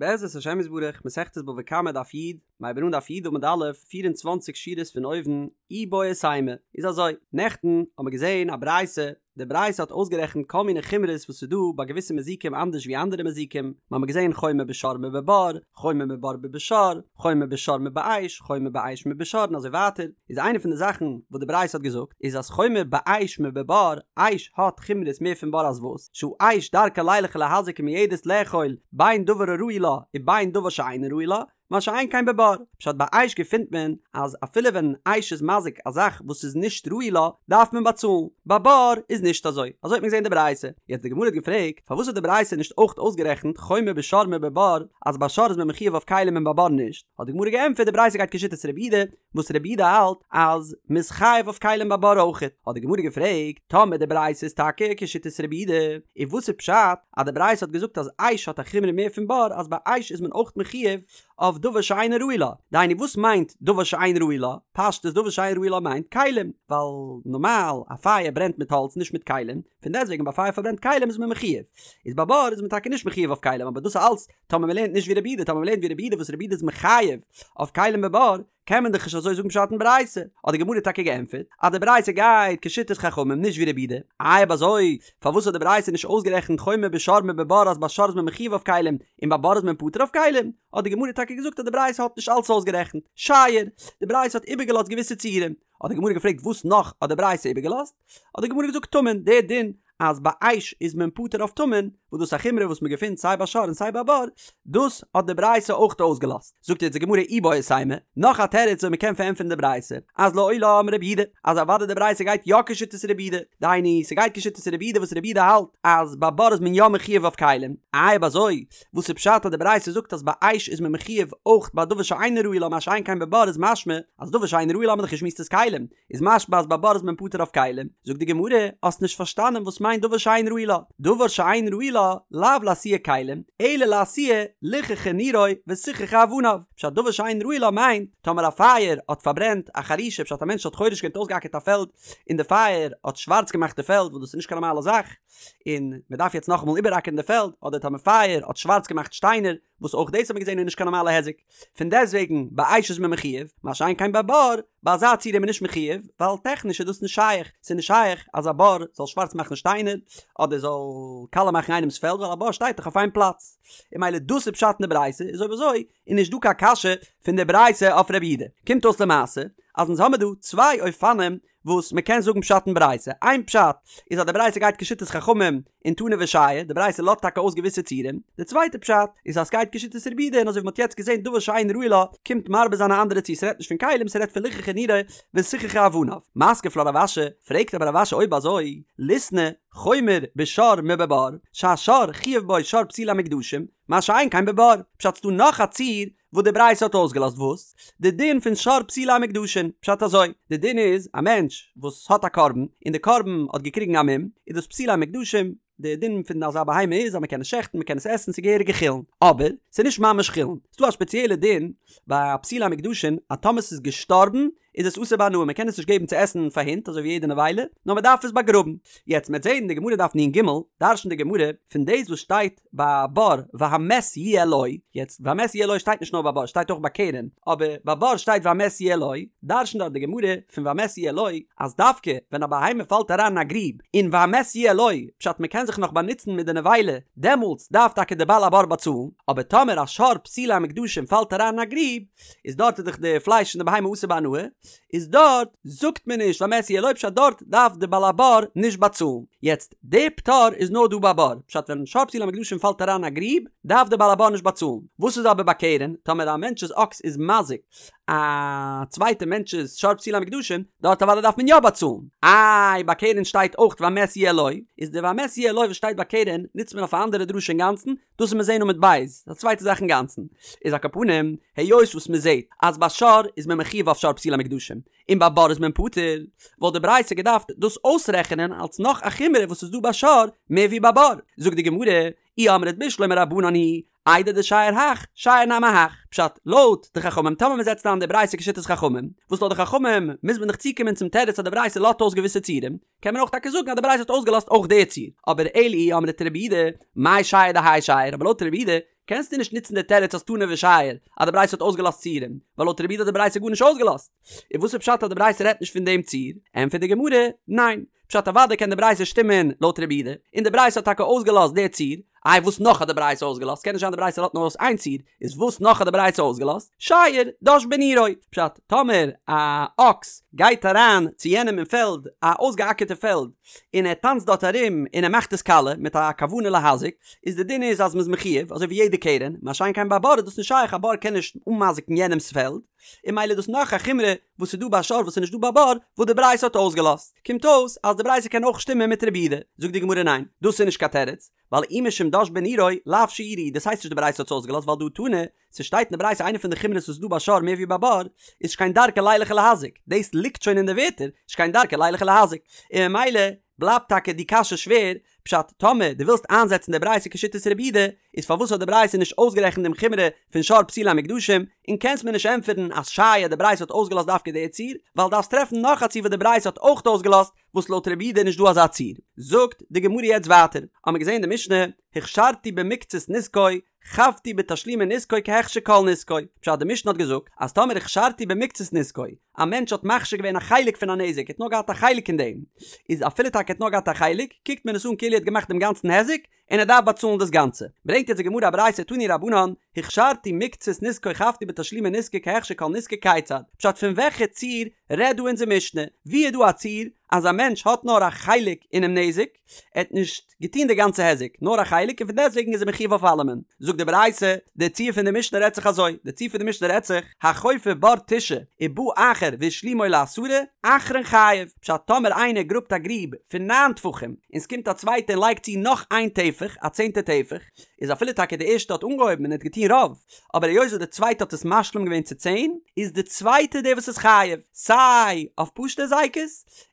בעזרת השם יתברך, מסכת בבא קמא דף י', מ'הייבן אן דף י' עמוד א', 24 שורות פון אויבן, איבעית אימא, איז אזוי, נעכטן האבן מיר געזען א ברייתא, די ברייתא האט אויסגערעכנט כל מיני חומרות וואס איז דא ביי געוויסע מזיקים אנדערש ווי אנדערע מזיקים, מ'האמיר געזען חומר בשור מבבור, חומר מבור מבשור, חומר בשור מבאש, חומר באש מבשור און אזוי ווייטער, איז איינע פון די זאכן וואס די ברייתא האט געזאגט איז אז חומר באש מבבור, אש האט חומרות מער פון בור אז וואס, שהאש דרכה לילך ולהזיק ומועדת לאכול בין דבר הראוי לה ובין דבר שאינו ראוי לה, מה שאין כן בבור, פשט ביי אש געפינט מען אז אפילו ווען אש איז מזיק א זאך וואס איז נישט ראוי לה דארף מען באצאלן, ביי בור איז נישט אזוי, אזוי האט מען געזען די ברייתא, יעצט די גמרא האט געפרעגט פארוואס האט די ברייתא נישט אויך אויסגערעכנט חומר בשור מבבור אז ביי שור איז מען מחויב אויף כלים און ביי בור נישט, האט די גמרא געענטפערט די ברייתא גייט כשיטת רבי יהודה וואס רבי יהודה האלט אז מ'איז חייב אויף כלים ביי בור אויכעט, האט די גמרא געפרעגט, טאמער די ברייתא איז טאקע כשיטת רבי יהודה, איז וואס איז פשט אז די ברייתא האט געזאגט אז אש האט א חומרא מער פון בור אז ביי אש איז מען אויך מחויב אויף דבר שאינו ראוי לה, דהיינו וואס מיינט דבר שאין ראוי לה? פשטות דבר שאין ראוי לה מיינט כלים, ווייל נארמאל א פייער ברענט מיט האלץ נישט מיט כלים, פון דעסטוועגן ביי פייער פארברענט כלים איז מען מחויב, איז ביי בור איז מען טאקע נישט מחויב אויף כלים אבער דאס איז אלץ טאמער מען לערנט נישט ווי רבי יהודה, טאמער מען לערנט ווי רבי יהודה וואס רבי יהודה איז מחייב אויף כלים בבור, קען מען דאך נישט אזוי זאגן פשט אין ברייתא. האט די גמרא טאקע געענטפערט אז די ברייתא גייט כשיטת חכמים נישט ווי רבי יהודה. איי אויב אזוי פארוואס האט די ברייתא נישט אויסגערעכנט חומר בשור מבבור אז ביי שור איז מען מחויב אויף כלים און ביי בור איז מען פטור אויף כלים? האט די גמרא טאקע געזאגט אז די ברייתא האט נישט אלץ אויסגערעכנט. שייר, די ברייתא האט איבערגעלאזט געוויסע ציורים. האט די גמרא געפרעגט וואס נאך האט די ברייתא איבערגעלאזט? האט די גמרא געזאגט טמון, דער דין אז ביי אש איז מען פטור אויף טמון, וואס דאס איז א חומרא וואס מען געפינט סיי ביי שור און סיי ביי בור, דאס האט די ברייתא אויך אויסגעלאזט. זאגט יעצט די גמרא איבעית אימא, נאך א תירוץ ווי מען קען פארענטפערן די ברייתא, אז לעולם רבי יהודה, אז אוודאי די ברייתא גייט יא כשיטת רבי יהודה, דהיינו ס'גייט כשיטת רבי יהודה וואס רבי יהודה האלט אז ביי בור איז מען יא מחויב אויף כלים, איי אויב אזוי וואס איז פשט אז די ברייתא זאגט אז ביי אש איז מען מחויב אויך ביי דבר שאינו ראוי לה מה שאין כן בבור איז משמע אז דבר שאינו ראוי לה האט מען דאך געשמועסט איז כלים, איז משמע אז ביי בור איז מען פטור אויף כלים, זאגט די גמרא, האסט נישט פארשטאנען וואס מיינט דבר שאין ראוי לה, דבר שאין ראוי לה, לאו לאתויי כלים, אלא לאתויי ליחכה נירו וסיככה אבניו, פשט דבר שאין ראוי לה מיינט, טאמער א פייער האט פארברענט א חרישה פשט א מענטש האט חורש געווען אויסגעאקערט א פעלד און די פייער האט שווארץ געמאכט די פעלד וואס דאס איז נישט קיין נארמאלע זאך און מען דארף יעצט נאכאמאל איבעראקערן די פעלד, אדער טאמער פייער האט שווארץ געמאכט שטיינער, וואס אויך דאס האט מען געזען איז נישט קיין נארמאלע היזק, פון דעסטוועגן ביי אש איז מען מחויב, מה שאין כן ביי בור, ביי אזא ציור איז מען נישט מחויב, ווייל טעכניש איז דאס נישט שייך, ס'איז נישט שייך אז א בור זאל שווארץ מאכן שטיינער, אדער זאל קאלע מאכן איינעמ'ס פעלד, ווייל א בור שטייט דאך אויף איין פלאץ. און ממילא דאס איז פשט אין די ברייתא, איז אויב אזוי איז נישט דא קיין קשיא פון די ברייתא אויף רבי יהודה. קומט אויס למעשה אז אונז האמיר דא צוויי אופנים וואס מען קען זאגן פשט אין ברייתא, איין פשט איז אז די ברייתא גייט כשיטת חכמים און תנא ושייר, די ברייתא לאזט טאקע אויס געוויסע ציורים, די צווייטע פשט איז אז סגייט כשיטת רבי יהודה און אזוי ווי מ'האט יעצט געזען דבר שאין ראוי לה קומט מרבה זיין א אנדערע ציור ס'רעדט נישט פון כלים ס'רעדט פון ליחכה נירו וסיככה אבניו. מתקיף לה רב אשי, פרעגט אבער רב אשי אויב אזוי ליתני חומר בשור מבבור שהשור חייב בו שור פסולי המוקדשים מה שאין כן בבור, פשט ס'דא נאך א ציור וואס די ברייתא האט אויסגעלאזט וואס? די דין פון שור פסולי המוקדשין, פשט אזוי, די דין איז א מענטש וואס האט א קרבן און די קרבן האט געקריגן א מום, איז דאס פסולי המוקדשים, די דין פון אזא בהמה איז אז מען קען עס שעכטן מען קען עס עסן ס'איז געהעריגע חולין, אבער ס'איז נישט ממש חולין, ס'דא א ספעציעלע דין ביי פסולי המוקדשין אז טאמער ס'איז געשטארבן איז עס אסור בהנאה מען קען עס נישט געבן צו עסן פאר הינט אזוי ווי יעדע נבילה, נאר מען דארף עס באגראבן. יעצט מ'עט זען אין די גמרא דף נ"ג, דרש'נט די גמרא פון דאס וואס שטייט ביי בור והמת יהיה לו, יעצט והמת יהיה לו שטייט נישט נאר ביי בור שטייט אויך ביי קרן, אבער ביי בור שטייט והמת יהיה לו, דרש'נט דארט די גמרא פון והמת יהיה לו אז דווקא ווען א בהמה פאלט אריין אין א גריב און והמת יהיה לו פשט מען קען זיך נאך באנוצן מיט די נבילה דעמאלטס דארף טאקע די בעל הבור באצאלן, אבער טאמער א שור פסולי המוקדשים פאלט אריין אין א גריב איז דארט איז דאך די פלייש פון די בהמה אסור בהנאה, איז דארט זאגט מען נישט והמת יהיה לו פשט דארט דארף די בעל הבור נישט באצאלן, יעצט די פטור איז נאר דא ביי בור, פשט ווען שור פסולי המוקדשים פאלט אריין אין א גריב דארף די בעל הבור נישט באצאלן, וואס איז אבער ביי קרן, טאמער א מענטש'ס אקס איז מזיק א צווייטע מענטש'ס שור פסולי המוקדשים, דארט אוודאי דארף מען יא באצאלן, איי ביי קרן שטייט אויך והמת יהיה לו, איז די והמת יהיה לו וואס שטייט ביי קרן נוצט מען אויף א אנדערע דרשה אינגאנצן, דאס וועט מען זעהן עמוד ב', א צווייטע זאך אינגאנצן, איז על כל פנים, היות וואס מען זעהט אז ביי שור איז מען מחויב אויף שור פסולי המוקדשים, און ביי בור איז מען פטור, וואלט די ברייתא געדארפט דאס אויסרעכענען אלס נאך א חומרא וואס איז דא ביי שור מער ווי ביי בור, זאגט די גמרא, אי אמרת בשלמא רבנן היא. איידי דשייר הך, שייר נמי הך. פשט, לויט די חכמים, טאמער מען זעצט איין די ברייתא כשיטת חכמים, וואס לויט די חכמים מוז מען דאך צוקומען צום תירוץ אז די ברייתא לאזט אויס געוויסע ציורים, קען מען אויך טאקע זאגן אז די ברייתא האט אויסגעלאזט אויך די ציור. אבער אלא אי אמרת רבי יהודה, מאי שייר דהאי שייר, אבער לויט רבי יהודה קענסטו נישט נוצן די תירוץ אז תנא ושייר אז די ברייתא האט אויסגעלאזט ציורים, ווייל לויט רבי יהודה האט די ברייתא גארנישט אויסגעלאזט. און וואס איז פשט אז די ברייתא רעדט נישט פון דעם ציור? ענטפערט די גמרא, ניין. פשט אוודאי קען די ברייתא שטימען לויט רבי יהודה, און די ברייתא האט טאקע אויסגעלאזט די ציור, איי וואס נאך האט די ברייתא אויסגעלאזט? קען נישט זיין די ברייתא לאזט נאר אויס איין ציור, איז וואס נאך האט די ברייתא אויסגעלאזט? שייר דש בנירו. פשט, טאמער א אקס גייט אריין צו יענעם אין פעלד, א אויסגעאקערטע פעלד, און ער טאנצט דארט ארום און ער מאכט עס קאלע מיט א כוונה להזיק, איז די דין איז אז מ'איז מחויב, אזוי ווי יעדע קרן, מה שאין כן ביי בור איז דאס נישט שייך, א בור קען נישט אנמזיקן יענעמ'ס פעלד, און ממילא איז דאס נאך א חומרא וואס איז דא ביי שור וואס איז נישט דא ביי בור, וואס די ברייתא האט אויסגעלאזט. קומט אויס אז די ברייתא קען אויך שטימען מיט רבי יהודה. זאגט די גמרא ניין, דאס איז נישט קיין תירוץ, ווייל אי משום דש בנירו, לאו שיורא, דאס הייסט נישט די ברייתא האט עס אויסגעלאזט ווייל דהא תנא, ס'שטייט אין די ברייתא איינע פון די חומרות וואס איז דא ביי שור מער ווי ביי בור, איז שכן דרכו לילך ולהזיק, דאס ליגט שוין אין די ווערטער, שכן דרכו לילך ולהזיק, און ממילא בלייבט טאקע די קשיא שווער, פשט, טאמער דו ווילסט איינזעצן די ברייתא כשיטת רבי יהודה, איז פארוואס האט די ברייתא נישט אויסגערעכנט דעם חומרא פון שור פסולי המוקדשים, און קענסט מיר נישט ענטפערן אז שייר די ברייתא האט אויסגעלאזט דווקא די ציור, ווייל דארפסט טרעפן נאך א ציור וואס די ברייתא האט אויך אויסגעלאזט, וואס לויט רבי יהודה איז נישט דא אזא ציור. זאגט די גמרא יעצט ווייטער, האמיר געזען אין די משנה, הכשרתי במקצת נזקו, חבתי בתשלומי נזקו כהכשר כל נזקו, פשט די משנה האט געזאגט אז טאמער הכשרתי במקצת נזקו, א מענטש האט מכשיר געווען א חלק פון א נזק, ער האט נאר געהאט א חלק אין דעם, איז אפילו טאקע ער האט נאר געהאט א חלק, קוקט מען עס אן כאילו ער האט געמאכט דעם גאנצן היזק, און ער דארף באצאלן דאס גאנצע. ברענגט יעצט די גמרא א ברייתא תנו רבנן, הכשרתי מקצת נזקו חבתי בתשלומי נזקו כהכשר כל נזקו כיצד, פשט פון וועלכע ציור רעדט דא אונזער משנה, ווי איז דא א ציור אז א מענטש האט נאר א חלק אינעם נזק, ער האט נישט געטון די גאנצע היזק, נאר א חלק און פון דעסטוועגן איז ער מחויב אויף אלעמען. זאגט די ברייתא, די ציור פון די משנה רעדט זיך אזוי, די ציור פון די משנה רעדט זיך, החופר בור תשעה ובא אחר והשלימו לעשרה, אחרון חייב, פשט טאמער איינער גראבט א גריב פון ניין טפחים, און ס'קומט א צווייטער און לייגט צו נאך איין טפח, א צענטע טפח, איז אפילו טאקע די ערשטע האט אנגעהויבן און האט געטון רוב, אבער היות וואס די צווייטע האט עס משלים געווען צו צען, איז די צווייטע דער וואס איז חייב, סיי אויף פשוטע הזיקות,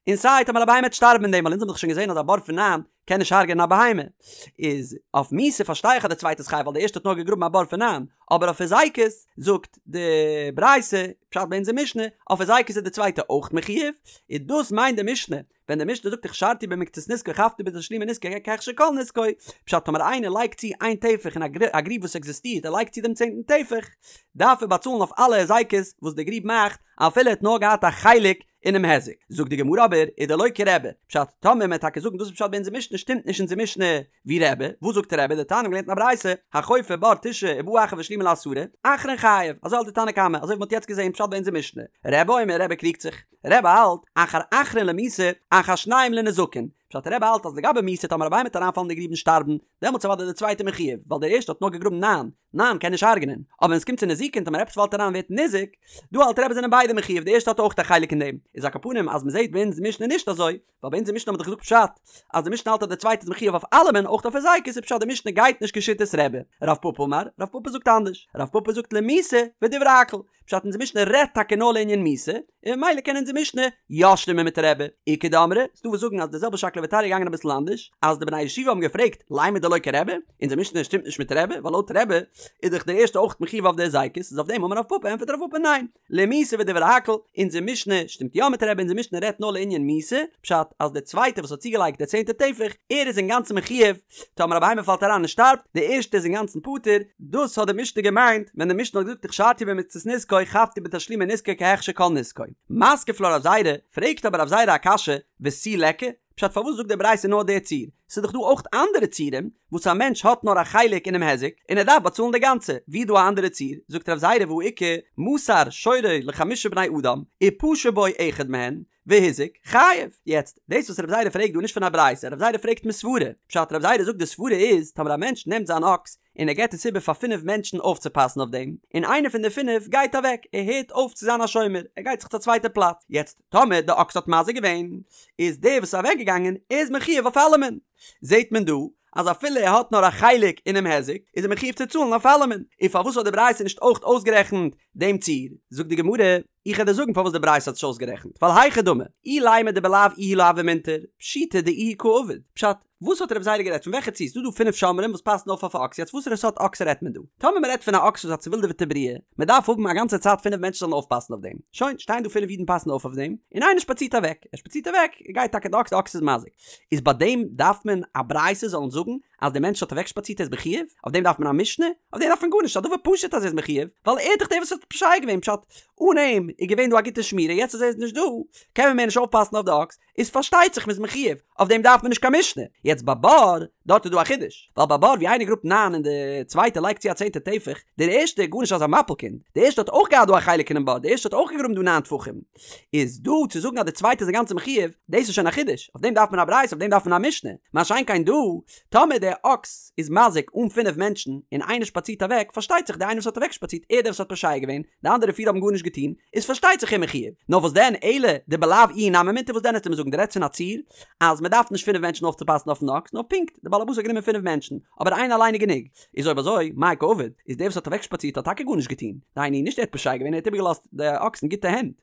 און סיי טאמער א בהמה וועט שטארבן אין דעם, ווייל אונז האבן דאך שוין געזען אז א בור פון ניין קען נישט הרג'ענען א בהמה, איז אויף מיתה פארשטיי איך אז די צווייטע איז חייב ווייל די ערשטע האט נאר געגראבן א בור פון ניין, אבער אויף הזיקות זאגט די ברייתא, פשט ביי אונזער משנה, אויף הזיקות איז די צווייטע אויך מחויב, און דאס מיינט די משנה, ווען די משנה זאגט הכשרתי במקצת נזקו חבתי בתשלומי נזקו כהכשר כל נזקו, פשט טאמער איינער לייגט צו איין טפח אין א גריב וואס עקזיסטירט ער לייגט צו דעם צענטן טפח, דארף ער באצאלן אויף אלע הזיקות וואס די גריב מאכט אפילו ער האט נאר געהאט א חלק אינעם היזק. זאגט די גמרא אבער ודלא כרבי, פשט טאמער מען וועט טאקע זאגן דאס איז פשט ביי אונזער משנה שטימט נישט אונזער משנה ווי רבי, וואס זאגט רבי דתניא מ'האט געלערנט אין א ברייתא החופר בור תשעה ובא אחר והשלימו לעשרה, אחרון חייב, אזוי האלט די תנא קמא, אזוי ווי מען האט יעצט געזען פשט ביי אונזער משנה, רבי אומר רבי קריגט זיך. רבי האלט, אחר אחרון למיתה, אחר שניהם לנזקין. פשט רבי האלט אז לגבי מיתה טאמער א בהמה וועט אריינפאלן אין די גריב און שטארבן, דעמאלטס איז אוודאי דער צווייטער מחויב, ווייל דער ערשטער האט נאר געגראבן ניין, ניין קען נישט הרג'נען. אבער ווען עס קומט צו נזיקין טאמער עפעס פאלט אריין ווערט ניזוק, דא האלט רבי זענען ביידע מחויב, דער ערשטער האט אויך א חלק אין דעם. איז על כל פנים אז מען זעט ביי אונז משנה נישט אזוי, ווייל ביי אונזער משנה האט מען דאך געזאגט פשט אז די משנה האלט אז דער צווייטער איז מחויב אויף אלעמען אויך אויף הזיקות איז פשט די משנה גייט נישט כשיטת רבי. רב פפא אמר, רב פפא זאגט אנדערש, רב פפא זאגט למיתה ודברי הכל, פשט אונזער משנה רעדט טאקע נאר לענין מיתה, און ממילא קען אונזער משנה יא שטימען מיט רבי. איכא דאמרי, ס'דא וואס זאגן אז די זעלבע שקלא וטריא איז געגאנגען אביסל אנדערש, אז די בני הישיבה האבן געפרעגט לימא דלא כרבי, אונזער משנה שטימט נישט מיט רבי, ווייל לויט רבי איז דאך דער ערשטער אויך מחויב אויף די הזיקות, איז אויף דעם אמר רב פפא ענטפערט רב פפא ניין, למיתה ודברי הכל, אונזער משנה שטימט יא מיט רבי, אונזער משנה רעדט נאר לענין מיתה, פשט אז דער צווייטער וואס האט צוגעלייגט דער צענטע טפח, ער איז אינגאנצן מחויב, טאמער א בהמה פאלט אריין און שטארבט, דער ערשטער איז אינגאנצן פטור, דאס האט די משנה געמיינט ווען די משנה האט געזאגט הכשרתי במקצת נזקו חבתי בתשלומי נזקו כהכשר כל נזקו. מתקיף לה רב זירא, פרעגט אבער רב זירא א קשיא, ותו ליכא? פשט פארוואס זאגט די ברייתא נאר די ציור? ס'איז דאך דא אויך אנדערע ציורים וואס א מענטש האט נאר א חלק אינעם היזק און ער דארף באצאלן די גאנצע, ווי איז דא א אנדערע ציור? זאגט רב זירא והא איכא מסר שורו לחמשה בני אדם ופשע בו אחד מהן והזיק חייב. יעצט, דאס וואס רב זירא פרעגט דא איז נישט פון א ברייתא, רב זירא פרעגט מסברה, פשט רב זירא זאגט די סברה איז טאמער א מענטש נעמט זיין אקס און ער געבט עס איבער פאר פינף מענטשן אויפצופאסן אויף דעם, און איינער פון די פינף גייט אוועק, ער הערט אויף צו זיין א שומר, ער גייט זיך צו א צווייטע פלאץ, יעצט טאמער די אקס האט מזיק געווען, איז דער וואס איז אוועק געגאנגען איז מחויב אויף אלעמען. זעט מען דא אז אפילו ער האט נאר א חלק אינעם היזק, איז ער מחויב צו צאלן אויף אלעמען. און פארוואס האט די ברייתא נישט אויך אויסגערעכנט דעם ציור? זאגט די גמרא. איך וועל דיר זאגן פארוואס די ברייתא האט נישט אויסגערעכנט, ווייל היכי דמי, אילימא דבלאו איהו לא הוה מינטר, פשיטא דאיהו קא עביד, פשט, וואס האט רבי זירא גערעדט פון וועלכע ציור? ס'דא דא פינף שומרים וואס פאסן אויף אויף א אקס, יעצט וואסערע סארט אקס רעדט מען דא? טאמער מ'רעדט פון א אקס וואס איז א צעווילדעוועטע בריאה, מ'דארף האבן א גאנצע צייט פינף מענטשן זאלן אויפפאסן אויף דעם, שוין, שטייען דא פינף אידן פאסן אויף אויף דעם, און איינער שפאצירט אוועק, ער שפאצירט אוועק, גייט טאקע די אקס, די אקס איז מזיק. איז ביי דעם דארף מען א ברייתא זאלן זאגן אז דער מענטש האט אוועקשפאצירט ער איז מחויב? אויף דעם דארף מען א משנה? אויף דעם דארף מען גארנישט, ס'איז א דבר פשוט אז ער איז מחויב, ווייל ער איז דאך דער וואס האט פושע געווען, פשט, אן אים איז געווען דא א גוטע שמירה, יעצט אז ער איז נישט דא, קען מען מער נישט אויפפאסן אויף די אקס, איז פארשטייט זיך מ'איז מחויב, אויף דעם דארף מען נישט קיין משנה. יעצט ביי בור, דארט איז דא א חידוש, ווייל ביי בור ווי איינער גראבט ניין און די צווייטע לייגט צו א צענטע טפח, דער ערשטער איז גארנישט אזא מפיל קינד, דער ערשטער האט אויך געהאט דא א חלק אינעם בור, דער ערשטער האט אויך געגראבן דא ניין טפחים, איז דא צו זאגן אז די צווייטע איז אינגאנצן מחויב, דאס איז שוין א חידוש, אויף דעם דארף מען א ברייתא, אויף דעם דארף מען א משנה, מה שאין כן דא, טאמער דער אקס איז מזיק אן פינף מענטשן, און איינער שפאצירט אוועק, פארשטייט זיך דער איינער וואס האט אוועקשפאצירט, ער דער וואס האט פושע געווען, די אנדערע פיר האבן גארנישט געטון, איז פארשטייט זיך ער מחויב. נאר וואס דען, אלא דבלאו איהו נמי מינטר, וואס דען וועסטו מיר זאגן, דו רעדסט פון א ציור, אז מען דארף נישט פינף מענטשן אויפצופאסן אויפן אקס, נאר פונקט, דער בעל הבית האט גענומען פינף מענטשן, אבער איינער אליין איז גענוג. איז אויב אזוי, מאי קא עביד, איז דער וואס האט אוועקשפאצירט האט טאקע גארנישט געטון, דהיינו נישט ער האט פושע געווען, ער האט איבערגעלאזט די אקס אין גוטע הענט.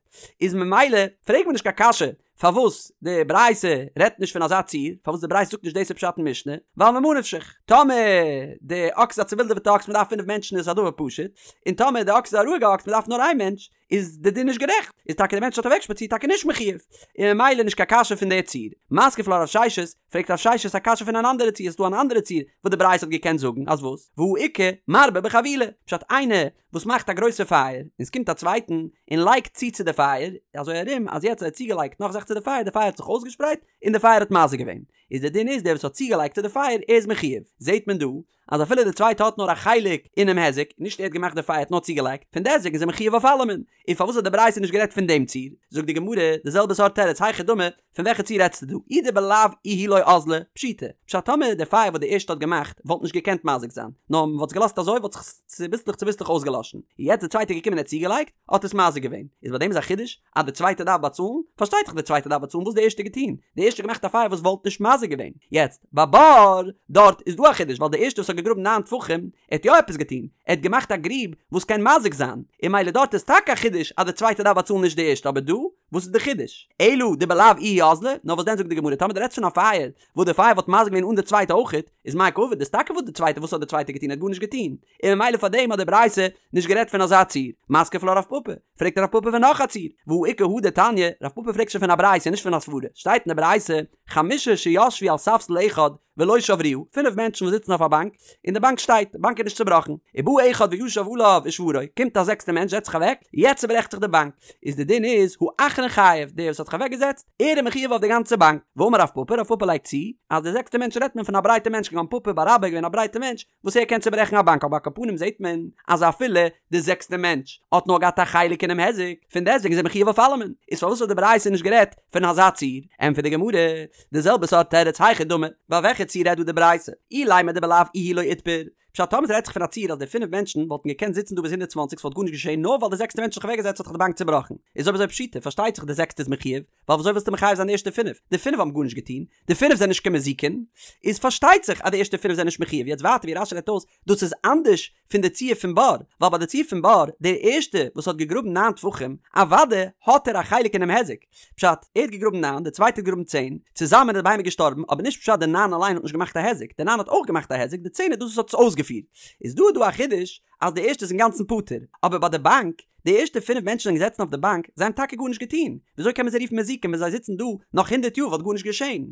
איז ממילא פרעגט מען נישט קיין קשיא פארוואס די ברייתא רעדט נישט פון אזא ציור, פארוואס די ברייתא זאגט נישט דאס איז פשט אין משנה, ווייל ממה נפשך, טאמער די אקס איז א צעווילדעוועטע אקס מען דארף פינף מענטשן איז א דבר פשוט, און טאמער די אקס איז א רואיגע אקס מען דארף נאר איין מענטש, איז די דין נישט גערעכט, איז טאקע די מענטש האט אוועקשפאצירט טאקע נישט מחויב, און ממילא נישט קיין קשיא פון די ציור. מתקיף לה רב ששת, פרעגט רב ששת א קשיא פון אן אנדערע ציור, ס'איז דא אן אנדערע ציור וואס די ברייתא האט געקענט זאגן אז וואס? והא איכא מרבה בחבילה, פשט איינער וואס מאכט א גרויסע פייער, און ס'קומט א צווייטן און לייגט צו צו די פייער, אזוי ארום אז יעצט ער האט צוגעלייגט נאך זאך צו די פייער, די פייער האט זיך אויסגעשפרייט און די פייער האט מזיק געווען, איז די דין איז דער וואס האט צוגעלייגט צו די פייער ער איז מחויב, זעט מען דא אז אפילו די צווייטע האט נאר א חלק אינעם היזק, נישט ער האט געמאכט די פייער האט נאר צוגעלייגט, פון דעסטוועגן איז ער מחויב אויף אלעמען, און פארוואס האט די ברייתא נישט גערעדט פון דעם ציור? זאגט די גמרא די זעלבע סארט תירוץ היכי דמי, פון וועלכע ציור רעדסטו דא? אי דבלאו איהו לא אזלא, פשיטא, פשט טאמער די פייער וואס די ערשטע האט געמאכט וואלט נישט געקענט מזיק זיין, נאר מען וואלט עס געלאזט אזוי וואלט זיך עס צוביסלעך צוביסלעך אויסגעלאשן, און יעצט די צווייטע איז געקומען און האט צוגעלייגט, האט עס מזיק געווען, איז ביי דעם איז א חידוש אז די צווייטע דארף באצאלן? פארשטייט זיך די צווייטע דארף באצאלן, וואס האט די ערשטע געטון? די ערשטע האט געמאכט א פייער וואס וואלט נישט מזיק געווען, יעצט ביי בור דארט איז דא א חידוש ווייל די ערשטע וואס האט געגראבן ניין טפחים ער האט יא עפעס געטון, ער האט געמאכט א גריב וואס קען מזיק זיין, און ממילא דארט איז טאקע א חידוש אז די צווייטע דארף באצאלן נישט די ערשטע אבער דא וואס איז די חידוש? אלא דבלאו איהו אזלא, נאר וואס דען זאגט די גמרא טאמער דו רעדסט פון א פייער וואס די פייער וואלט מזיק געווען אן די צווייטע אויכעט, איז מאי קא עביד, איז טאקע וואס די צווייטע וואס האט די צווייטע געטון ער האט גארנישט געטון, און ממילא פאר דעם האט די ברייתא נישט גערעדט פון אזא ציור, מתקיף לה רב פפא, פרעגט רב פפא פון נאך א ציור, והא איכא הא דתניא, רב פפא פרעגט שוין פון א ברייתא נישט פון א סברא, שטייט אין די ברייתא, חמשה שישבו על ספסל אחד ולא שברוה, פינף מענטשן וואס זיצן אויף א באנק, און די באנק שטייט, די באנק איז נישט צובראכן, ובא אחד וישב עליו ושברו, קומט א זעקסטע מענטש זעצט זיך אוועק, יעצט צוברעכט זיך די באנק, איז די דין איז, האחרון חייב, דער וואס האט זיך אוועק געזעצט, ער איז מחויב אויף די גאנצע באנק, ואמר רב פפא, רב פפא לייגט צו, אז די זעקסטע מענטש רעדט מען פון א ברייטע מענטש כגון פפא בר אבא איז געווען א ברייטע מענטש, וואס ער קען צוברעכן א באנק אבער על כל פנים זעט מען אז אפילו די זעקסטע מענטש האט נאר געהאט א חלק אינעם היזק, פון דעסטוועגן איז ער מחויב אויף אלעמען, איז פארוואס האט די ברייתא נישט גערעדט פון אזא ציור? ענטפערט די גמרא, די זעלבע סארט תירוץ היכי דמי, ביי וועלכע ציור רעדט דא די ברייתא? אילימא דבלאו איהו לא איתבר, פשט טאמער ס'רעדט זיך פון א ציור אז די פינף מענטשן וואלטן געקענט זיצן דא ביז 120 ס'וואלט גארנישט געשען נאר ווייל די זעקסטע מענטש האט זיך אוועקגעזעצט האט זיך די באנק צובראכן, איז אויב אזוי פשיטא פארשטייט זיך די זעקסטע איז מחויב, ווייל וויאזוי ווילסטו מחייב זיין די ערשטע פינף? די פינף האבן גארנישט געטון, די פינף זענען נישט קיין מזיקין, איז פארשטייט זיך אז די ערשטע פינף זענען נישט מחויב, יעצט ווייטער ווי רש"י רעדט אויס, דאס איז אנדערש פון די ציור פון בור, ווייל ביי די ציור פון בור, דער ערשטע וואס האט געגראבן ניין טפחים, אוודאי האט ער א חלק אינעם היזק, פשט, ער האט געגראבן ניין, דער צווייטער האט געגראבן צען, צוזאמען איז די בהמה געשטארבן, אבער נישט פשט די ניין אליין האט נישט געמאכט א היזק, די ניין האט אויך געמאכט א היזק, די צען איז דאס וואס האט עס אויסגעפירט. איז דא דא א חידוש אז די ערשטע איז אינגאנצן פטור, אבער ביי די באנק, די ערשטע פינף מענטשן זענען געזעצן אויף די באנק, זיי האבן טאקע גארנישט געטון, וויאזוי קען מען זיי רופן מזיקים ווען זיי זיצן דא נאך הונדערט יאר וואלט גארנישט געשען?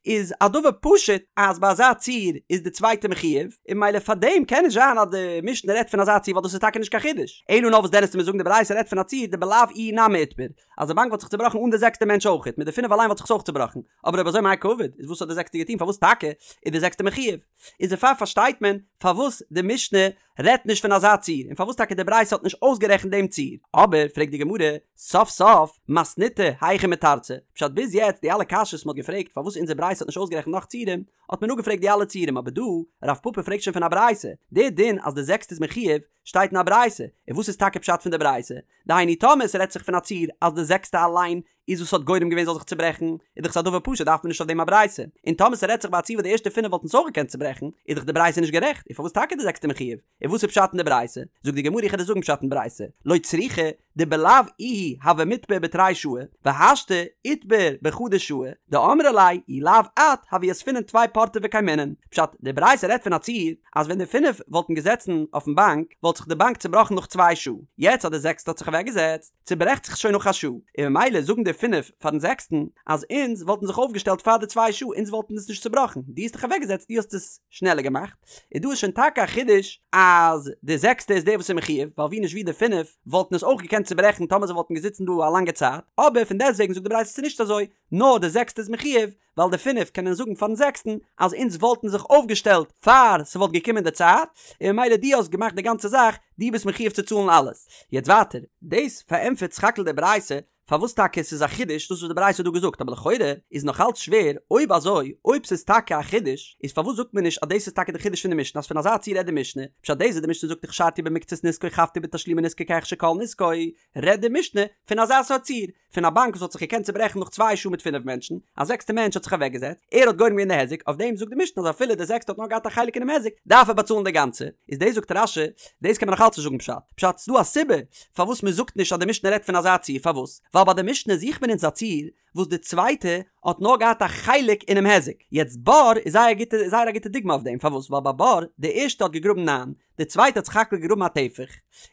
איז א דבר פשוט אז ביי אזא ציור איז די צווייטע מחויב, און ממילא פארדעם קען נישט זיין אז די משנה רעדט פון אזא ציור ווייל דאס איז טאקע נישט קיין חידוש, אלא נאר וואס דען וועסטו מיר זאגן די ברייתא רעדט פון א ציור דבלאו איהו נמי איתבר, אז די באנק וואלט זיך צובראכן אן די זעקסטע מענטש אויכעט, מיט די פינף אליין וואלט זיך עס אויך צובראכן, אבער אויב אזוי מאי קעביד, איז וואס האט די זעקסטע געטון פארוואס טאקע איז די זעקסטע מחויב? איז דערפאר פארשטייט מען פארוואס די משנה רעדט נישט פון אזא ציור, און פארוואס טאקע די ברייתא האט נישט אויסגערעכנט דעם ציור. אבער, פרעגט די גמרא, סוף סוף, מתניתא היכי מתרצא, פשט ביז יעצט די אלע קשיות מ'האט געפרעגט פארוואס אונזער ברייתא האט נישט אויסגערעכנט נאך ציורים, האט מען אפגעפרעגט די אלע ציורים, אבער דא, רב פפא פרעגט שוין פון א ברייתא, די דין אז די זעקסטע איז מחויב, שטייט אין א ברייתא, און וואס איז טאקע פשט פון די ברייתא? דהיינו טאמער ס'רעדט זיך פון א ציור אז די זעקסטע אליין איז וואס האט גורם געווען זאל זיך צוברעכן, איז דאך עס א דבר פשוט דארף מען נישט אויף דעם א ברייתא, און טאמער ס'רעדט זיך ביי א ציור וואס די ערשטע פינף וואלטן עס אויך געקענט צוברעכן, איז דאך די ברייתא נישט גערעכט, און פארוואס טאקע די זעקסטע מחויב? און וואס איז פשט אין די ברייתא? זאגט די גמרא איך וועל דיר זאגן פשט אין ברייתא, לא צריכא, דבלאו איהו הוה מיתבר בתרי שעי, והשתא איתבר בחדא שעה, דאמרי ליה אי לאו את הוה יתבינן טפי פורתא וקיימינן. פשט, די ברייתא רעדט פון א ציור אז ווען די פינף וואלטן געזעצן אויפן באנק וואלט זיך די באנק צובראכן נאך צוויי שעה, יעצט אז די זעקסטע האט זיך אוועקגעזעצט צוברעכט זיך שוין נאך א שעה, און ממילא זאגן די פינף פארן זעקסטן אז אונז וואלטן זיך אויפגעשטעלט פאר די צוויי שעה אונז וואלטן עס נישט צובראכן, דו האסט דיך אוועקגעזעצט דו האסט עס שנעלער געמאכט, און דא איז שוין טאקע א חידוש אז די זעקסטע איז דער וואס איז מחויב, ווייל ווי נישט ווי די פינף וואלטן עס אויך געקענט צוברעכן טאמער זיי וואלטן געזיצן דא א לאנגע צייט, אבער פון דעסטוועגן זאגט די ברייתא ס'איז נישט אזוי, נאר די זעקסטע איז מחויב, ווייל די פינף קענען זאגן פארן זעקסטן אז אונז וואלטן זיך אויפגעשטעלט פאר ס'וואלט געקומען די צייט, און ממילא דו האסט געמאכט די גאנצע זאך, דו ביסט מחויב צו צאלן אלעס. יעצט ווייטער, דאס פארענטפערט סך הכל די ברייתא פארוואס טאקע ס'איז א חידוש דאס וואס די ברייתא האט דא געזאגט, אבער לכאורה איז נאך אלץ שווער, אויב אזוי, אויב ס'איז טאקע א חידוש, איז פארוואס זאגט מען נישט אז דאס איז טאקע די חידוש פון די משנה אז פון אזא ציור רעדט די משנה, פשט דאס וואס די משנה זאגט הכשרתי במקצת נזקו חבתי בתשלומי נזקו כהכשר כל נזקו, רעדט די משנה פון אזא סארט ציור, פון א באנק וואס האט זיך געקענט צוברעכן נאך צוויי שעה מיט פינף מענטשן, א זעקסטע מענטש האט זיך אוועקגעזעצט, ער האט גורם געווען די היזק, אויף דעם זאגט די משנה אז אפילו די זעקסטע האט נאר געהאט א חלק אינעם היזק, דארף ער באצאלן די גאנצע, איז דאס זאגט רש"י, דאס קען מען נאך אלץ נישט זאגן פשט, פשט ס'דא א סיבה פארוואס מען זאגט נישט אז די משנה רעדט פון אזא ציור, פארוואס? ווייל ביי די משנה זוכט מען אונז א ציור וואס די צווייטע האט נאר געהאט א חלק אינעם היזק, יעצט בור איז זייער גוטע זייער א גוטע דוגמא אויף דעם, פארוואס? ווייל ביי בור, די ערשטע האט געגראבן ניין, די צווייטע האט סך הכל געגראבן א טפח,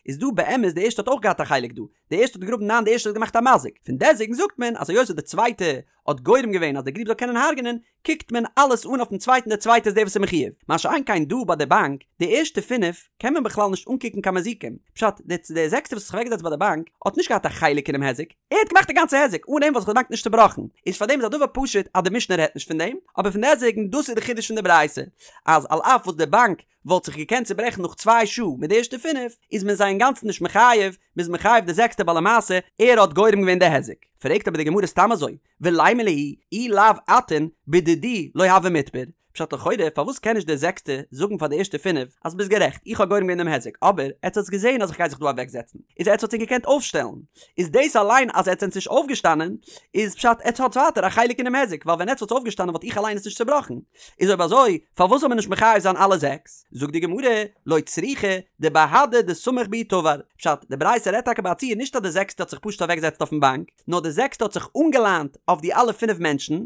איז דא באמת די ערשטע האט אויך געהאט א חלק דא, די ערשטע האט געגראבן ניין די ערשטע האט געמאכט א מזיק, פון דעסוועגן זאגט מען אז היות די צווייטע האט גורם געווען אז די גריב זאל קענען הרג'נען, קוקט מען אלעס אן אויפן צווייטן די צווייטע איז דער וואס איז מחויב, מה שאין כן דא ביי די באנק, די ערשטע פינף קען מען בכלל נישט אנקוקן קיין מזיקים, פשט, די די זעקסטע וואס האט זיך אוועקגעזעצט ביי די באנק האט נישט געהאט א חלק אינעם היזק, ער האט געמאכט די גאנצע היזק, אן אים וואלט זיך די באנק נישט צובראכן, איז פארדעם איז א דבר פשוט אז די משנה רעדט נישט פון דעם, אבער פון דעסוועגן דאס איז די חידוש פון די ברייתא, אז על אף וואס די באנק וואלט זיך געקענט צוברעכן נאך צוויי שעה מיט די ערשטע פינף, איז מען זיי אינגאנצן נישט מחייב, מ'איז מחייב די זעקסטע ווייל למעשה ער האט גורם געווען די היזק. פרעגט אבער די גמרא סתם אזוי, ולימא להו אי לאו אתון בדידי לא הוה מיתבר, פשט לכאורה פארוואס קען נישט דער זעקסטע זאגן פאר די ערשטע פינף אז ביסט גערעכט איך האב גורם געווען דעם היזק אבער עטס האטס געזען אז איך גיי זיך דא אוועקזעצן איז עטס האטס ענק געקענט אויפשטעלן איז דאס אליין אז עטס זענטס נישט אויפגעשטאנען איז פשט עטס האטס ווייטער א חלק אינעם היזק ווייל ווען עטס וואלטס אויפגעשטאנען וואלט איך אליין עס נישט צובראכן איז אויב אזוי פארוואס זאל מען נישט מחייב זיין אלע זעקס? זאגט די גמרא, לא צריכא דבהדי דסמיך בהו תבר, פשט, די ברייתא רעדט טאקע ביי א ציור נישט אז די זעקסטע האט זיך פשוט אוועקגעזעצט אויפן באנק, נאר די זעקסטע האט זיך אנגעליינט אויף די אלע פינף מענטשן,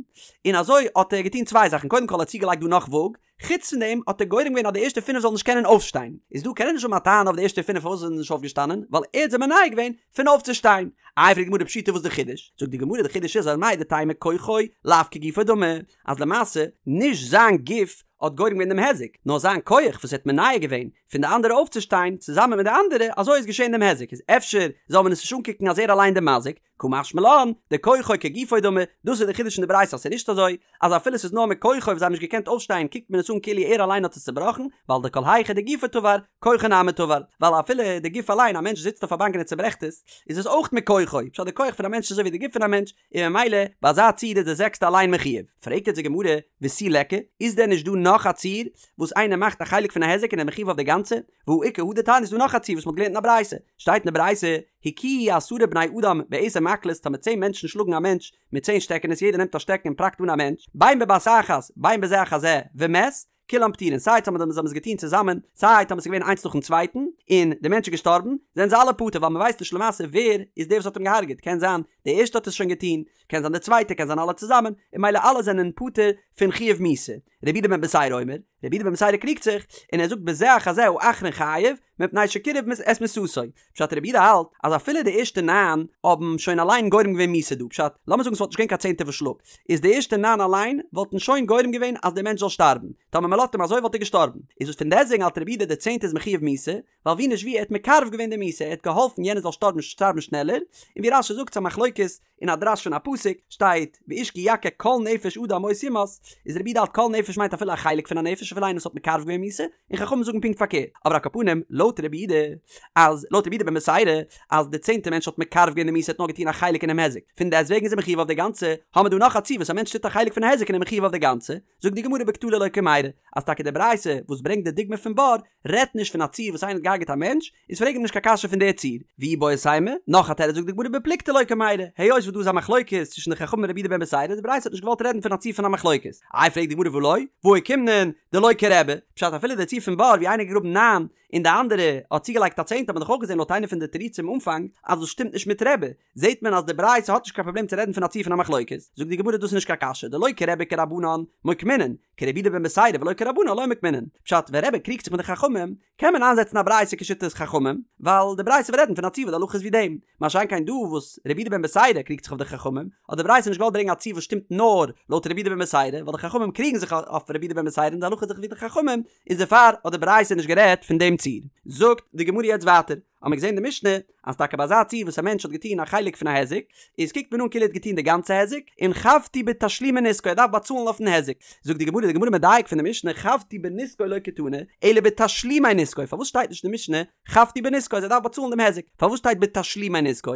און אזוי האט ער געטון צוויי זאכן, קודם כל האט ער צוגעלייגט דא נאך וואג, חוץ פון דעם האט ער גורם געווען אז די ערשטע פינף זאלן נישט קענען אויפשטיין, איז דא קען ער נישט האבן א טענה אויף די ערשטע פינף פארוואס זיי זענען נישט אויפגעשטאנען, ווייל ער האט זיי מונע געווען פון אויפצושטיין. איי פרעגט די גמרא פשיטא וואס די חידוש? זאגט די גמרא די חידוש איז אז מהו דתימא כוחו לאו כגופו דמי, אז למעשה נישט זיין גוף האט גורם געווען דעם היזק, נאר זיין כח וואס ער האט מונע געווען פון די אנדערע אויפצושטיין צוזאמען מיט די אנדערע, אזוי איז געשען דעם היזק, איז אפשר זאל מען עס נישט אנקוקן אז ער אליין דער מזיק, קא משמע לן, דכוחו כגופו דמי, דאס איז די חידוש אין די ברייתא אז ס'איז נישט אזוי, אז אפילו ס'איז נאר מכוחו וואס זיי האבן נישט געקענט אויפשטיין קוקט מען עס אן כאילו ער אליין האט עס צובראכן, ווייל דכל היכא דגופו תבר, כוחו נמי תבר, ווייל אפילו די גוף אליין, א מענטש זיצט אויף א באנק און ער צוברעכט עס, איז עס אויך מכוחו, פשט די כח פון א מענטש איז אזוי ווי די גוף פון א מענטש, און ממילא ביי אזא ציור איז די זעקסטע אליין מחויב. פרעגט יעצט די גמרא, ותו ליכא, איז דען נישט דא נאך א ציור וואס איינער מאכט א חלק פון א היזק און ער איז מחויב אויף די גאנצע? והא איכא הא דתניא איז דא נאך א ציור וואס מ'האט געלערנט אין א ברייתא, שטייט אין די ברייתא, הכוהו עשרה בני אדם בעשר מקלות טאמער צען מענטשן שלאגן א מענטש מיט צען שטעקענעס יעדער נעמט א שטעקן און פראקט אן א מענטש, בין בבת אחת בין בזה אחר זה, ומת, כולם פטורין, סיי טאמער זיי האבן עס געטון צוזאמען, סיי טאמער עס איז געווען איינס נאכן צווייטן, און דער מענטש איז געשטארבן, זענען זיי אלע פטור, ווייל מען ווייסט נישט למעשה ווער איז דער וואס האט אים געהארגעט, קען זיין דער ערשטער האט עס שוין געטון, קען זיין דער צווייטער, קען זיין אלע צוזאמען, און ממילא אלע זענען פטור פון חיוב מיתה. רבי יהודה בן בתירא אומר, רבי יהודה בן בתירא קריגט זיך, און ער זאגט בזה אחר זה האחרון חייב, מפני שקירב את מיתתו. פשט רבי יהודה האלט אז אפילו די ערשטע ניין האבן שוין אליין גורם געווען מיתה דא, פשט, לאמיר זאגן ס'וואלט נישט געווען קיין צענטער וואס שלאגט, איז די ערשטע ניין אליין וואלטן שוין גורם געווען אז דער מענטש זאל שטארבן, טאמער מ'לאזט אים אזוי וואלט ער געשטארבן, איז וואס פון דעסטוועגן האלט רבי יהודה די צענטע איז מחויב מיתה, ווייל ווי נישט ווי ער האט מקרב געווען די מיתה, ער האט געהאלפן יענער זאל שטארבן שטארבן שנעלער, און ווי רש"י זאגט ס'א מחלוקת אין א דרש פון א פסוק שטייט ואיש כי יכה כל נפש אדם מות יומת, איז רבי יהודה האלט כל נפש מיינט אפילו א חלק פון א נפש אפילו איינער וואס האט מקרב געווען מיתה, און חכמים זאגן פונקט פארקערט, אבער על כל פנים לויט רבי יהודה אז לויט רבי יהודה בן בתירא אז די צענטע מענטש האט מקרב געווען די מיתה האט נאר געטון א חלק אינעם היזק, פון דעסטוועגן איז ער מחויב אויף די גאנצע, האמער דא נאך א ציור וואס א מענטש טוט א חלק פון א היזק און ער איז מחויב אויף די גאנצע, זאגט די גמרא בקטלא לא קמיירי, אז טאקע די ברייתא וואס ברענגט די דוגמא פון בור רעדט נישט פון א ציור וואס איינער האט געהארגעט א מענטש, איז פרעג אים נישט קיין קשיא פון די ציור. ואיבעית אימא, נאך א תירוץ זאגט די גמרא בפלוגתא לא קמיירי, היות וואס דא איז א מחלוקת צווישן די חכמים און רבי יהודה בן בתירא, די ברייתא האט נישט געוואלט רעדן פון א ציור פון א מחלוקת. איי פרעגט די גמרא והא לא, והא אוקימנן דלא כרבי, פשט אפילו די ציור פון בור ווי איינער האט געגראבן ניין. און די אנדערע האט צוגעלייגט א צענטע האט מען דאך אויך געזען לויט איינע פון די תירוצים אנפאנג אז דאס שטימט נישט מיט רבי, זעט מען אז די ברייתא האט נישט קיין פראבלעם צו רעדן פון א ציור פון א מחלוקת, זאגט די גמרא דאס איז נישט קיין קשיא דלא כרבי כרבנן מוקמינן, כרבי יהודה בן בתירא ולא כרבנן לא מוקמינן, פשט ווען רבי קריגט זיך מיט די חכמים קען מען איינזעצן א ברייתא כשיטת חכמים, ווייל די ברייתא וועט רעדן פון א ציור וואס די הלכה איז ווי דעם, מה שאין כן דא וואס רבי יהודה בן בתירא קריגט זיך אויף די חכמים, האט די ברייתא נישט געוואלט ברענגען א ציור וואס שטימט נאר לויט רבי יהודה בן בתירא, ווייל די חכמים קריגן זיך אויף רבי יהודה בן בתירא און די הלכה איז דאך ווי די חכמים, איז דערפאר האט די ברייתא נישט גערעדט פון דעם ציור. זאגט די גמרא יעצט ווייטער, האט מען געזען אין די משנה אז טאקע ביי אזא ציור וואס א מענטש האט געטון א חלק פון א היזק, איז קוקט מען אן כאילו ער האט געטון די גאנצע היזק, און חבטו בתשלומי נזקו ער דארף באצאלן אויפן היזק. זאגט די גמרא, די גמרא מדייק פון די משנה חבטו בנזקו לא קתני, אלא בתשלומי נזקו, פארוואס שטייט נישט אין די משנה חבטו בנזקו אז ער דארף באצאלן דעם היזק, פארוואס שטייט בתשלומי נזקו?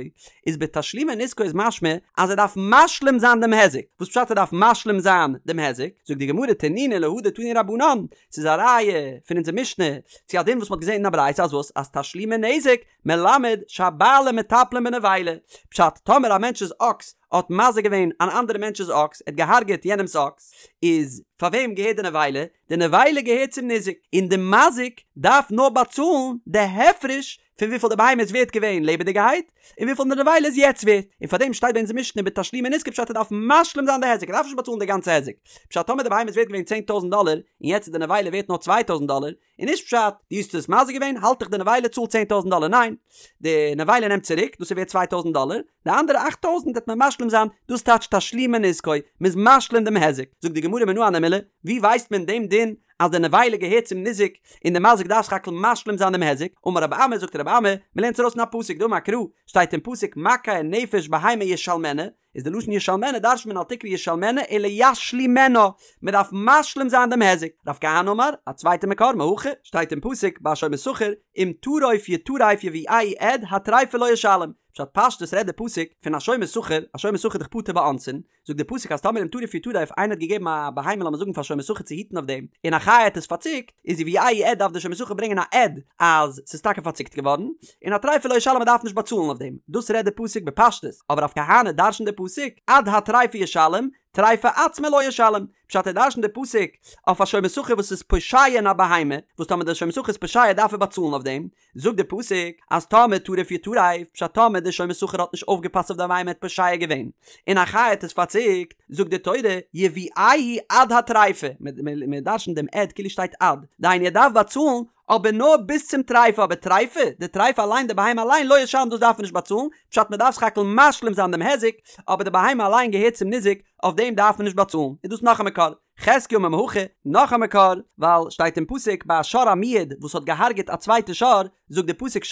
איז בתשלומי נזקו איז משמע אז ער דארף משלים זיין דעם היזק, וואס פשט ער דארף משלים זיין דעם היזק? זאגט די גמרא תנינא להא דתנו רבנן, ס'איז א ראיה פון אונזער משנה צו א דין וואס מ'האט געזען אין א ברייתא אז וואס? אז תשלומי נזק מלמד שהבעלים מטפלין בנבילה, פשט טאמער א מענטש'ס אקס האט מזיק געווען אן אנדערע מענטש'ס אקס, ער האט געהארגעט יענעמ'ס אקס, איז פאר וועם געהערט די נבילה? די נבילה געהערט צום ניזק, און די מזיק דארף נאר באצאלן די הפרש פון וויפיל די בהמה איז ווערט געווען לעבעדיגערהייט, און וויפיל די נבילה איז יעצט ווערט, און פארדעם שטייט ביי אונזער משנה בתשלומי נזקו פשט ער דארף משלים זיין די היזק, ער דארף נישט באצאלן די גאנצע היזק, פשט טאמער די בהמה איז ווערט געווען 10,000 דאלער, און יעצט איז די נבילה ווערט נאר 2,000 דאלער, איז נישט פשט דו האסט עס מזיק געווען האלט דיך די נבילה צאל 10,000 דאלער, ניין, די נבילה נעמט צוריק, דאס איז ווערט 2,000 דאלער, די אנדערע 8,000 וועט מען משלים זיין, דאס טייטשט תשלומי נזקו, מען איז משלים דעם היזק, זאגט די גמרא מנא הני מילי, ווי ווייסט מען דעם דין אז די נבילה געהערט צום ניזק און די מזיק דארף סך הכל משלים זיין דעם היזק, אמר רבי אמי זאגט רבי אמי, מען לערנט עס ארויס פון א פסוק דאמר קרא, שטייט אין פסוק מכה נפש בהמה ישלמנה, איז די לשון ישלמנה דרש'נט מען אל תקרי ישלמנה אלא ישלימנה, מען דארף משלים זיין דעם היזק, רב כהנא אמר, א צווייטע מקור מהכא, שטייט אין פסוק ביי שומר שכר, אם טרוף יטרף יביאהו עד הטריפה לא ישלם, פשט פשטות רעדט די פסוק פון א שומר שכר, א שומר שכר איז דאך פטור באונסין, זאגט די פסוק אז טאמער אם טרוף יטרף איינער האט געגעבן א בהמה לאמיר זאגן פאר שומר שכר צו היטן אויף דעם און א חיה האט עס פארציקט איז יביאהו עד דארף די שומר שכר ברענגען א עד אז ס'איז טאקע פארציקט געווארן און הטריפה לא ישלם מ'דארף נישט באצאלן אויף דעם דאס רעדט די פסוק בפשטות אבער רב כהנא דרש'נט די פסוק עד הטריפה ישלם טריפה עצמה לא ישלם פשט ער דרש'נט די פסוק אויף א שומר שכר וואס איז פושע אין א בהמה וואס טאמער די שומר שכר איז פושע דארף ער באצאלן אויף דעם זאגט די פסוק אז טאמער טרף יטרף, פשט טאמער די שומר שכר האט נישט אויפגעפאסט אויף די בהמה האט פושע געווען, און א חיה האט עס פארציקט, זאגט די תורה, יביאהו עד הטריפה, מען דרש'נט דעם עד כאילו שטייט עד, דהיינו ער דארף באצאלן, אבער נאר ביז צום טריפה, אבער טריפה, די טריפה אליין, די בהמה אליין, לא ישלם דאס דארף מען נישט באצאלן, פשט מען דארף סך הכל משלים זיין דעם היזק, אבער די בהמה אליין געהערט צום ניזק, אויף דעם דארף מען נישט באצאלן, איז דאס נאך א מקור. חזקיה אמר מהכא, נאך א מקור, ווייל שטייט אין פסוק ביי א שור המועד וואס האט געהארגעט א צווייטע שור, זאגט די פסוק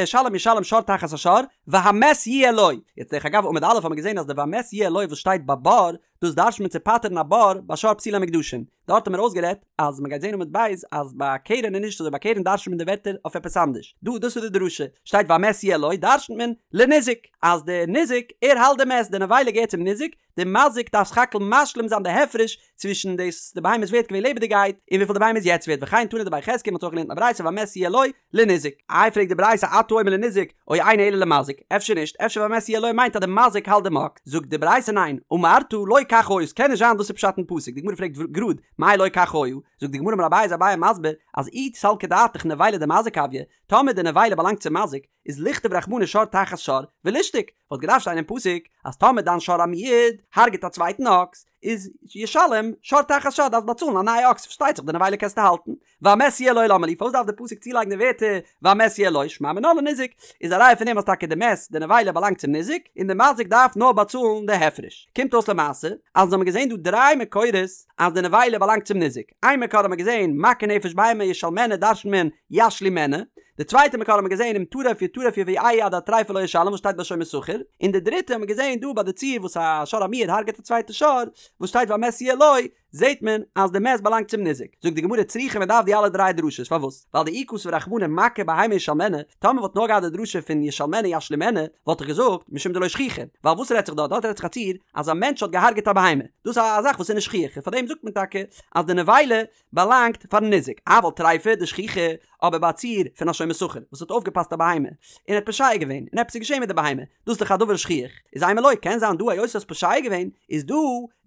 שלם ישלם שור תחת השור, והמת יהיה לו. יעצט דרך אגב עמוד א' האט מען געזען אז די והמת יהיה לו וואס שטייט ביי בור, דאס דרש'נט מען צו פטר'ן א בור ביי שור פסולי המוקדשין. דארט האט מען אויסגערעדט אז מען גייט זען עמוד ב' אז ביי קרן איז נישט אזוי ביי קרן דרש'נט מען די ווערטער אויף עפעס אנדערש. דא דאס איז די דרשה, שטייט והמת יהיה לו דרש'נט מען לניזק, אז די ניזק ער האלט די מת, די נבילה געהערט צום ניזק, די מזיק דארף סך הכל משלים זיין די הפרש צווישן דאס די בהמה איז ווערט געווען לעבעדיגעהייט און וויפיל די בהמה איז יעצט ווערט וכן תנא דבי חזקיה מ'האט אויך געלערנט אין א ברייתא והמת יהיה לו לניזק. איי פרעגט די ברייתא אתה אומר לניזק או אינו אלא למזיק אפשר נישט אפשר והמת יהיה לו מיינט אז די מזיק האלט דעם אקס זאגט די ברייתא ניין אמרת לא כך היה ס'קען נישט זיין דאס איז פשט אין פסוק די גמרא פרעגט גראד מאי לא כך היה זאגט די גמרא אמר אביי איז אביי מסביר אז אי סלקא דעתך נבילה דמזיק הויא טאמער די נבילה באלאנגט צום מזיק איז לכתוב רחמנא שור תחת שור ולישתוק, וואלט געדארפט שטיין אין פסוק אז טאמער דיין שור המועד הרג'ט א צווייטן אקס, איז ישלם שור תחת שור דארפסט באצאלן א נייע אקס, פארשטייט זיך די נבילה קענסטו האלטן, והמת יהיה לו למה לי, פארוואס דארף די פסוק צולייגן די ווערטער והמת יהיה לו, שמע מינה לניזק, איז א ראיה פון דעם אז טאקע די מת, די נבילה באלאנגט צום ניזק, און די מזיק דארף נאר באצאלן די הפרש. קומט אויס למעשה אז אונז האבן געזען דא דריי מקורות אז די נבילה באלאנגט צום ניזק, איין מקור האט מען געזען מכה נפש בהמה ישלמנה דרש'נט מען ישלימנה, די צווייטע מקור האט מען געזען אם טרף יטרף יביאהו עד הטריפה לא ישלם וואס שטייט ביי שומר שכר, און די דריטע האט מען געזען דא ביי די ציור וואס א שור המועד הרג'עט א צווייטע שור, וואס שטייט והמת יהיה לו, זעט מען אז די מת באלאנגט צום ניזק. זאגט די גמרא צריכא מען דארף די אלע דריי דרשות פארוואס? ווייל דאי כתב רחמנא מכה בהמה ישלמנה, טאמער וואלט נאר געהאט די דרשה פון ישלמנה ישלימנה, וואלט איך געזאגט משום דלא שכיחא, ווייל וואס רעדט זיך דארט? דארט רעדט זיך א ציור אז א מענטש האט געהארגעט א בהמה, דאס איז א זאך וואס איז נישט שכיח, און פארדעם זאגט מען טאקע אז די נבילה באלאנגט פארן ניזק, אבל טריפה דשכיחא, אבער ביי א ציור פון א שומר שכר וואס האט אויפגעפאסט א בהמה און האט פושע געווען און עפעס איז געשען מיט די בהמה, דאס איז דאך א דבר שכיח, איז אימא לא, קען זיין דא היות האסט פושע געווען איז דא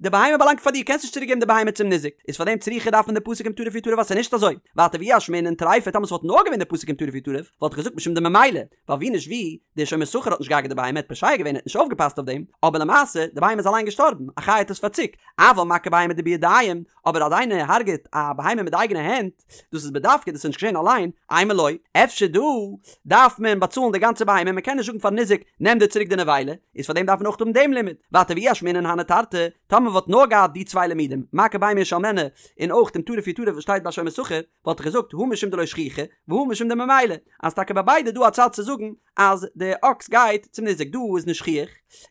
די בהמה באלאנגט פאר דיר קענסט נישט צוריק געבן די בהמה. בהמה צום ניזק, איז פאר דעם צריכא דארף מען די פסוק אם טרף יטרף ווייל ס'איז נישט אזוי, ווייטער ואי אשמעינן טריפה טאמער ס'וואלט נאר געווען די פסוק אם טרף יטרף וואלט איך געזאגט משום דממילא, ווייל ווי נישט ווי, דער שומר שכר האט נישט געהארגעט די בהמה, ער האט פושע געווען ער האט נישט אויפגעפאסט אויף דעם, אבער למעשה די בהמה איז אליין געשטארבן, א חיה האט עס פארציקט, אבל מכה בהמה דבידים, אבער אז איינער הרגעט א בהמה מיט די אייגענע הענט, דאס איז בדווקא דאס איז נישט געשען אליין, אימא לא, אפשר דא דארף מען באצאלן די גאנצע בהמה, מען קען נישט זאגן פארן ניזק נעם דיר צוריק די נבילה, איז פאר דעם דארף מען אויך האבן דעם לימוד, ווייטער ואי אשמעינן הני תרתי, טאמער וואלט נאר געהאט די צוויי לימודים, מכה בהמה ישלמנה, און אויך אם טרף יטרף וואס שטייט ביי שומר שכר, וואלט איך געזאגט הא משום דלא שכיחא, והא משום דממילא, אז טאקע ביי ביידע דא א צד צו זאגן אז די אקס גייט צום ניזק דא איז נישט שכיח,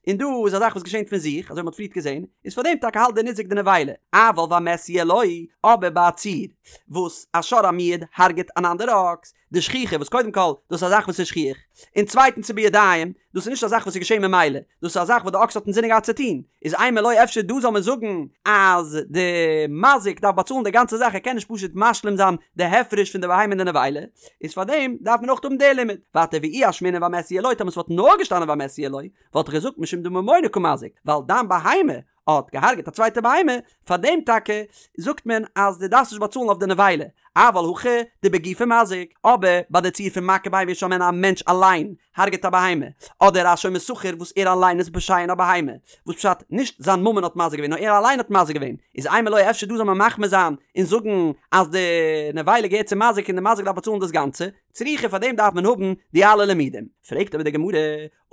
און דא איז א זאך וואס געשענט פון זיך, אזוי ווי מ'האט פריערט געזען, איז פאר דעם טאקע האלט די ניזק די נבילה, אבל והמת יהיה לו, אבער ביי א ציור וואס א שור המועד הרג'ט אן אנדערע אקס, דשכיחא וואס קודם כל דאס איז א זאך וואס איז שכיח, און צווייטנס ס'איז בידיים, דאס איז נישט א זאך וואס איז געשען ממילא, דאס איז א זאך וואס די אקס האט אינזינען געהאט צו טון, איז אימא לא אפשר דא זאל מען זאגן אז די מזיק דארף באצאלן די גאנצע זאך ער קען נישט פשוט משלים זיין די הפרש פון די בהמה און די נבילה, איז פאר דעם דארף מען אויך האבן די לימוד. ווייטער ואי אשמעינן והמת יהיה לו טאמער ס'וואלט נאר געשטאנען והמת יהיה לו וואלט איך געזאגט משום דממונא קא מזיק ווייל דיין בהמה האט געהארגעט א צווייטע בהמה, פאר דעם טאקע זאגט מען אז דו דארפסט נישט באצאלן אויף די נבילה, אבל הכא דבגופיה מזיק, אבער ביי די ציור פון מכה בהמה ישלמנה א מענטש אליין הרגעט א בהמה, אדער א שומר שכר וואס ער אליין איז פושע אין א בהמה, וואס פשט נישט זיין ממון האט מזיק געווען נאר ער אליין האט מזיק געווען, איז אימא לא אפשר דא זאל מען מחמיר זיין און זאגן אז די נבילה געהערט צום מזיק און די מזיק דארף באצאלן דאס גאנצע, צריכא פאר דעם דארף מען האבן די אלע לימודים. פרעגט אבער די גמרא,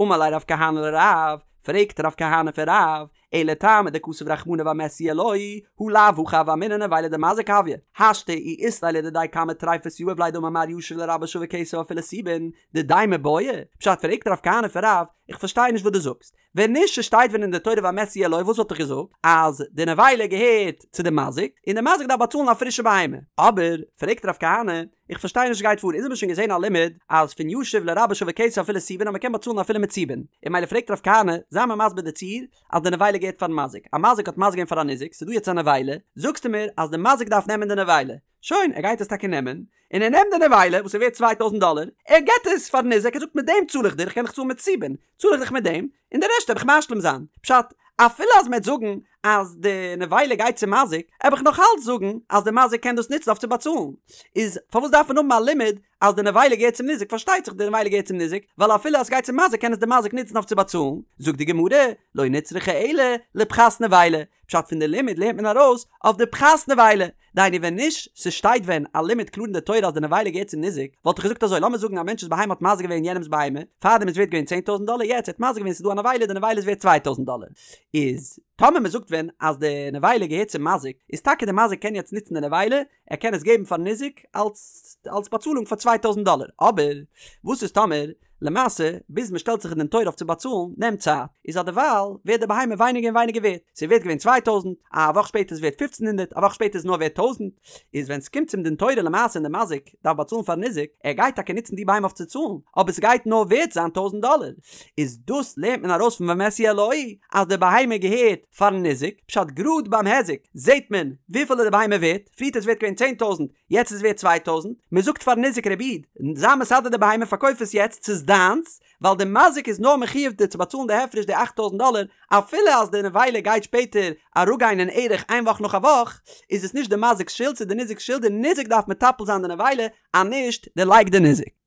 אמר ליה רב כהנא לרב, פרעגט רב כהנא פון רב, אלא טעמא דכתב רחמנא והמת יהיה לו, הא לאו הכי הוה אמינא נבילה דמזיק הויא, השתא אי אית ליה לדידיה כמה טריפות יהיב ליה דאמר מר ישיב לרבו שווה כסף אפילו סובין, דידיה מיבעיא? פשט פרעגט רב כהנא פון רב, איך פארשטיי נישט וואס דו זאגסט, ווען נישט ס'שטייט ווען אין די תורה והמת יהיה לו וואס וואלט איך געזאגט? אז די נבילה געהערט צו די מזיק און די מזיק דארף באצאלן א פרישע בהמה. אבער, פרעגט רב כהנא, איך פארשטיי נישט וואס גייט פאר, אונז האבן שוין געזען א לימוד אז פון ישיב לרבו שווה כסף אפילו סובין אז מ'קען באצאלן אפילו מיט סובין, און ממילא פרעגט רב כהנא, זיי מיר מסביר די ציור אז די נבילה געהערט פארן מזיק, א מזיק האט מזיק געווען פאר א ניזק, ס'דא יעצט א נבילה, זאגסטו מיר אז די מזיק דארף נעמען די נבילה, שוין, ער גייט עס טאקע נעמען, און ער נעמט די נבילה וואס איז ווערט צוויי טויזנט דאלער, ער געט עס פארן ניזק, ער זאגט מיט דעם צאל איך דיר, איך קען דיך צאלן מיט סובין, צאל איך דיך מיט דעם, און די רעשט וועל איך משלים זיין. פשט, אפילו אז מ'עט זאגן אז די נבילה גייט צום מזיק, עב איך נאך אלץ זאגן אז די מזיק קען דאס נוצן אויף צו באצאלן. איז פארוואס דארף מען האבן א לימוד אז די נבילה געהערט צום ניזק? פארשטייט זיך די נבילה געהערט צום ניזק, ווייל אפילו אז ס'גייט צום מזיק קען עס די מזיק נוצן אויף צו באצאלן. זאגט די גמרא, לא נצרכה אלא לפחת נבילה, פשט פון די לימוד לערנט מען ארויס אויף די פחת נבילה, דהיינו ווען נישט ס'שטייט ווען א לימוד קלאר אין די תורה אז די נבילה געהערט צום ניזק, וואלט איך געזאגט אזוי לאמיר זאגן א מענטש'ס בהמה האט מזיק געווען יענעמ'ס בהמה, פארדעם איז ווערט געווען צען טויזנט דאלער יעצט ער האט מזיק געווען ס'איז דא א נבילה די נבילה איז ווערט צוויי טויזנט דאלער, איז טאמער מ'זאגט ווען אז די נבילה געהערט צום מזיק, איז טאקע די מזיק קען יעצט נוצן די נבילה, ער קען עס געבן פארן ניזק אלס אלס באצאלונג פאר צוויי טויזנט דאלער, אבער וואס איז טאמער למעשה ביז מען שטעלט זיך אין דין תורה אויף צו באצאלן נעמט צייט, איז אז דערווייל ווערט די בהמה ווייניגער און ווייניגער ווערט, ס'איז ווערט געווען צוויי טויזנט, א וואך שפעטער איז ווערט פופצן הונדערט, א וואך שפעטער איז נאר ווערט טויזנט, איז ווען ס'קומט צום דין תורה למעשה און די מזיק דארף באצאלן פארן ניזק, ער גייט טאקע נוצן די בהמה אויף צו צאלן, אבער ס'גייט נאר ווערט זיין טויזנט דאלער, איז דאס לערנט מען ארויס פון והמת יהיה לו אז די בהמה געהערט פארן ניזק, פשט גראד ביים היזק זעהט מען וויפיל איז די בהמה ווערט, פריערט איז ווערט געווען צען טויזנט, יעצט איז ווערט צוויי טויזנט, מען זאגט פארן ניזק רבי איד, זיי מסדר די בהמה פארקויף עס יעצט ס'איז דיינס, ווייל די מזיק איז נאר מחיוב דיר צו באצאלן די הפרש די אכט טויזנט דאלער, אפילו אז די נבילה גייט שפעטער אראפגיין אין ערך איין וואך נאך א וואך, איז עס נישט די מזיק'ס שולד ס'איז די ניזק'ס שולד, די ניזק דארף מטפל זיין די נבילה, אז נישט דערלייגט די ניזק.